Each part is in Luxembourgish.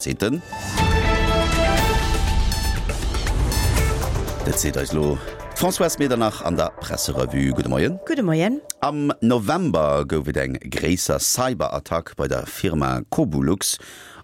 Seet den. Dat seet eis elo d'Françoise Medernach an der Presserevue. Gudde Moien. Gudde Moien. Am November gouf et eng gréisser Cyberattack bei der Firma Cobulux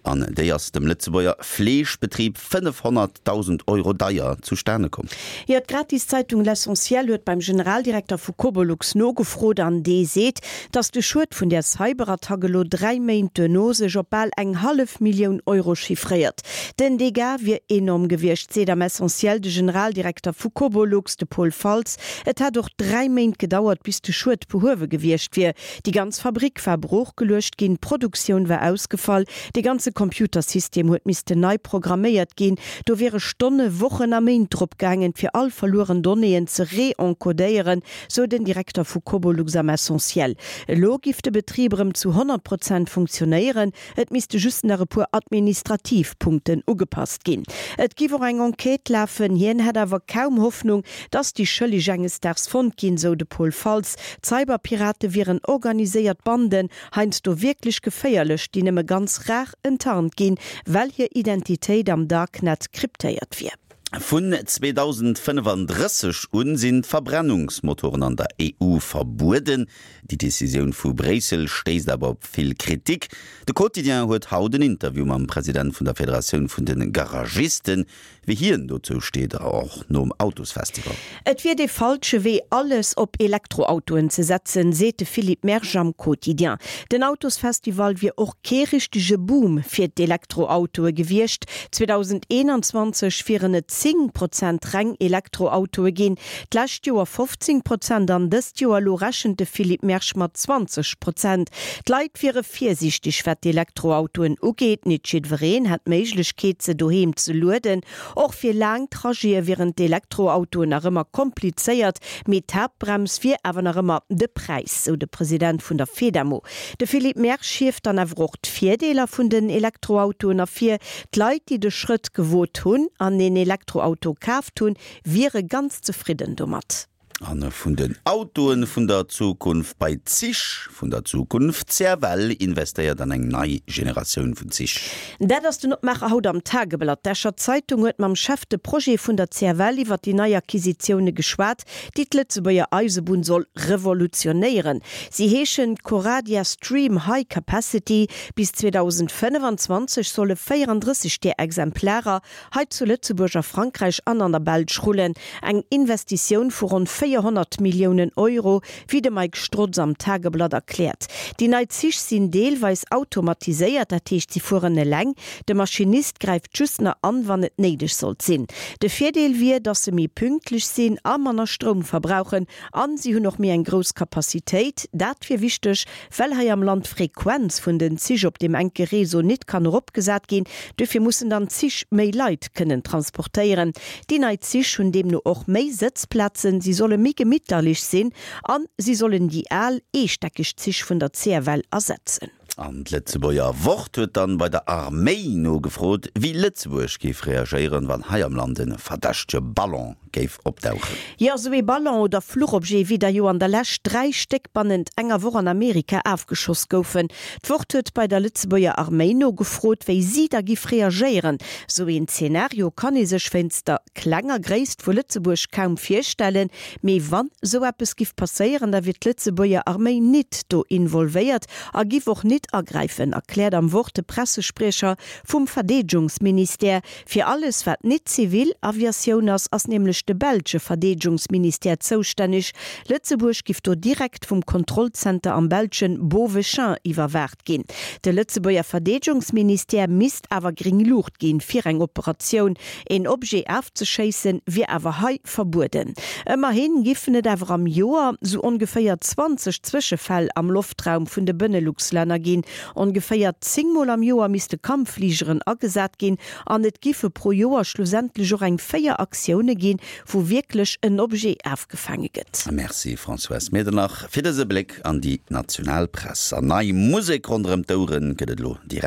an déi ass dem Lëtzebuerger Fleeschbetrib 500.000 Euro deier zustane komm. Jo, d'Gratiszeitung L'Essentiel huet beim Generaldirekter vu Cobolux nogefrot an dee seet, datt de Schued vun där Cyberattack elo 3 Méint duerno sech op bal eng hallef Millioun Euro chiffréiert. Den Dégât wier enorm gewiescht, seet am Essentiel de Generaldirekter vu Cobolux, de Paul Faltz. Et hätt och 3 Méint gedauert, bis de Schued behuewe gewiescht wier. Déi ganz Fabrick war broochgeluecht ginn, d'Produktioun war ausgefall, de ganze Computersystem huet missten nei programméiert ginn. Do wiere Stonne, Wochen a Méint drop gaangen, fir all verlueren Donnéeën ze re-encodéieren, sou den Direkter vu Cobolux am Essentiel. Elo giff de Betrib erëm zu 100 Prozent funktionéieren, et misste just nach e puer administrativ Punkten ugepasst ginn. Et giff och eng Enquête lafen, hien hätt awer kaum Hoffnung, dass déi Schëlleg enges Daags fonnt ginn, sou de Paul Faltz. D'Cyberpirate wieren organiséiert Banden, heiansdo wierklech geféierlech, déi nëmme ganz rar enttarnt ginn, well hir Identitéit am Darknet kryptéiert wier. Vun 2035 un sinn d'Verbrennungsmotoren an der EU verbueden. Déi Decisioun vu Bréissel stéisst awer op vill Kritik. De Quotidien huet haut en Interview mam President vun der Federatioun vun de Garagisten. Wéi hien dozou steet, och nom Autosfestival. Et wier dee falsche Wee, alles op Elektroautoen ze setzen, seet de Philippe Mersch am Quotidien. Den Autosfestival wier och kee richtege Boom fir d'Elektroautoe gewiescht. 2021 wieren et 10 Prozent reng Elektroautoe ginn, d'lescht Joer 15 Prozent an dëst Joer elo rechent de Philippe Mersch mat 20 Prozent. D'Leit wiere virsiichteg wat d'Elektroautoen ugeet. Nit jiddwereen hätt d'Méiglechkeet se doheem ze lueden. Och fir laang Trajete wieren d'Elektroautoen nach ëmmer komplizéiert, mee d'Haaptbrems wier awer nach ëmmer de Präis, sou de President vun der Fedamo. De Philippe Mersch hieft dann awer och d'Virdeeler vun den Elektroautoen ervir. D'Leit, déi de Schrëtt gewot hunn an een Elektroauto kaaft hunn, wiere ganz zefridden domat. A vun den Autoen vun der Zukunft bei d'Zich vun der Zukunft, CFL investéiert an eng nei Generatioun vun Zich. Dat ass den Opmaacher haut am Tageblatt. D'Escher Zeitung huet mam Chef de Projet vun der CFL iwwer déi nei Acquisitioune geschwat, déi d'Lëtzebuerger Eisebunn soll revolutionéieren. Si heeschen Coradia Stream High Capacity. Bis 2025 solle 34 där Exemplarer hei zu Lëtzebuerg, a Frankräich an an der Belsch rullen. Eng Investitioun vu ronn 400 Milliounen Euro, wéi de Mike Strotz am Tageblatt erkläert. Déi nei Zich sinn deelweis automatiséiert, dat heescht si fueren eleng, de Maschinist gräift just nach an, wann et néideg sollt sinn. De Virdeel wier, datt se méi pünktlech sinn a manner Stroum verbrauchen an si hunn och méi eng grouss Capacitéit. Dat wier wichteg, Well hei am Land d'Frequenz vun den Zich op deem enke Réseau nit kann eropgesat ginn, duerfir mussen dann d'Zich méi Leit kënnen transportéieren. Déi nei Zich hunn deemno och méi Sëtzplazen, si solle méi gemitterlich sinn an si sollen déi al eestäckeg Zich vun der CFL ersetzen. An d'Lëtzebuerger Wort huet dann bei der Arméi nogefrot, wéi Lëtzebuerg géif reagéieren, wann hei am Land e verdächtege Ballon géif opdauchen. Jo, esou ee Ballon oder Fluchobjet, wéi der jo an der Lescht 3 Stéck bannent enger Woch an Amerika afgeschoss goufen. D'Wort huet bei der Lëtzebuerger Arméi nogefrot, wéi si da giff reagéieren. Esou een Zeenario kann ee sech wéinst der klenger Gréisst vu Lëtzebuerg kaum virstellen. Mee wann esou eppes giff passéieren, da wier d'Lëtzebuerger Arméi nit do involvéiert a giff och nit agräifen, erkläert am Wort de Pressespriecher vum Verdeedgungsministère. Fir alles wat nit zivil Aviatioun ass, ass nämlech de belsche Verdeedegungsministère zoustänneg. Lëtzebuerg giff do direkt vum Kontrollzenter am belschen Beauvechain iwwerwaacht ginn. De Lëtzebuerger Verdeedegungsministère misst awer gréng Luucht ginn fir eng Operatioun. Een Objet afzeschéissen wier awer hei verbueden. Ëmmerhin giffen et awer am Joer sou ongeféier 20 Zwëschefäll am Loftraum vun de Benelux-Länner ginn. Ongeféier 10 Mol am Joer misste Kampffligeren agesat ginn an et giffe pro Joer schlussendlech och eng 4 Aktioune ginn, wou wierklech en Objet afgefaange gëtt. Merci Françoise Medernach fir dëse Bléck an déi national Press. An nei Musek ronderëm d'Oueren gëtt et elo direkt.